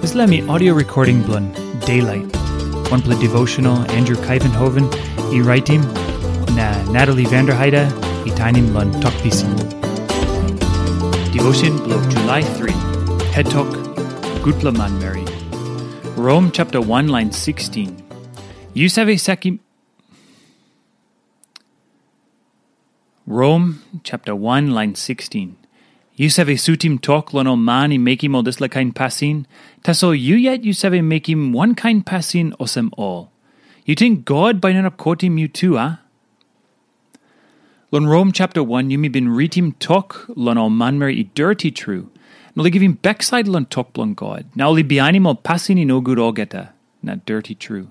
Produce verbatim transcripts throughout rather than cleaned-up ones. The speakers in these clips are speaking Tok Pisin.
Dispela mi audio recording bilong Daylight, wanpela devotional Andrew Kaivenhoven i raitim, na Natalie Vanderheide i tainim long Tok Pisin. Devotion bilong July three, Het Tok, Gutpela Manmeri. Rom chapter one, line sixteen. Yu save sakim Rom chapter one, line sixteen. Yu save sutim tok long ol man i mekim ol dispela kain pasin, tasol yu yet yu save mekim wankain pasin olsem ol. Yu ting God bai no inap kotim yu tu, a? Long Rom chapter one, yumi bin ritim tok long ol manmeri i doti tru, na ol i givim baksait long tok bilong God, na ol i bihainim ol pasin i nogut olgeta, na doti tru.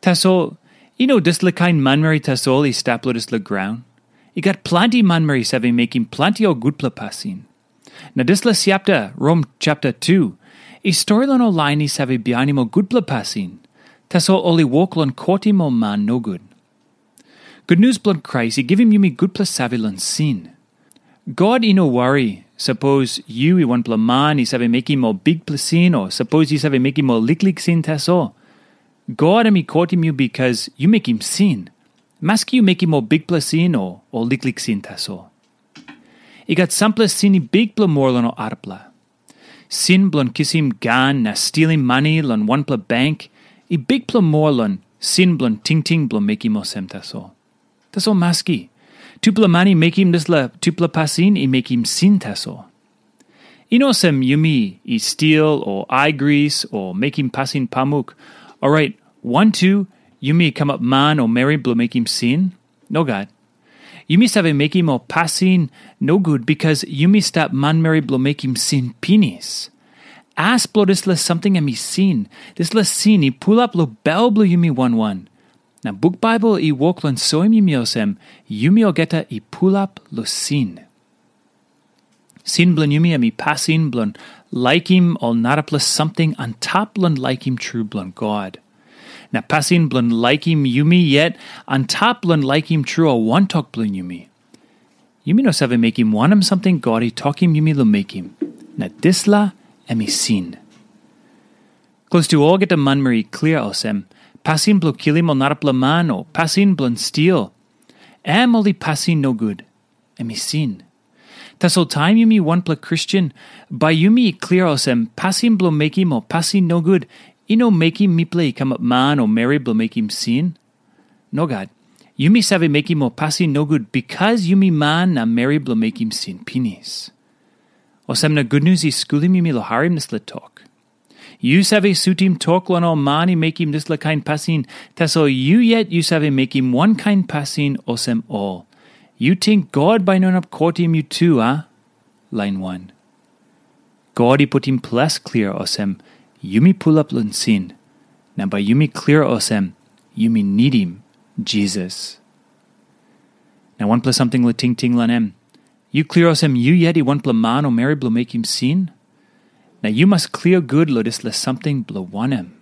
Tasol, i no dispela kain manmeri tasol i stap long dispela graun. I gat planti manmeri save mekim planti ol gutpela pasin. Na dispela chapter, Rom chapter two, i stori long ol lain i save bihainim ol gutpela pasin, tasol ol i wok long kotim ol man nogut. Gutnius bilong Krais i givim yumi gutpela save long sin. God i no wari, sapos yu i wanpela man i save mekim ol bikpela sin, o sapos yu save mekim ol liklik sin tasol. God em i kotim yu bikas yu mekim sin, maski yu mekim ol bikpela sin o ol liklik sin tasol. I gat sampela sin i bikpela moa long ol arapela. Sin bilong kisim gan na stilim mani long wanpela bank i bikpela moa long sin bilong tingting bilong mekim olsem tasol. Tasol maski, tupela man i mekim dispela tupela pasin i mekim sin tasol. I no olsem yumi i stil o aigris o mekim pasin pamuk, orait wantu yumi kamap man o meri bilong mekim sin. Nogat. Yumi save mekim ol pasin nogut bikas yumi stap manmeri bilong mekim sin pinis. As bilong dispela samting em i sin, dispela sin i pulap long bel bilong yumi wan wan. Na buk Baibel i wok long soim yumi olsem, yumi olgeta i pulap long sin. Sin bilong yumi em i pasin bilong laikim ol narapela samting antap long laikim tru bilong God. Na pasin bilong laikim yumi yet antap long laikim tru ol wantok bilong yumi. Yumi no save mekim wanem samting God i tokim yumi long mekim, na dispela em i sin. Klostu olgeta manmeri i klia olsem, pasin bilong kilim ol narapela man o pasin bilong stil, em ol i pasin nogut, em i sin. Tasol taim yumi wanpela Kristen, bai yumi i klia olsem, pasin bilong mekim ol pasin nogut i no mekim mipela i kamap man o meri bilong mekim sin. Nogat. Yumi save mekim ol pasin nogut bikas yumi man na meri bilong mekim sin pinis. Olsem na gutnius i skulim yumi long harim dispela tok. Yu save sutim tok long ol man i mekim dispela kain pasin, tasol yu yet yu save mekim wankain pasin olsem ol. Yu ting God bai no inap kotim yu tu, a? Lain wan. God i putim ples klia olsem, yumi pulap long sin, na bai yumi klia olsem, yumi nidim Jisas. Na wanpela samting long tingting long em, yu klia olsem yu yet i wanpela man o meri bilong mekim sin? Na yu mas klia gut long dispela samting bilong wanem?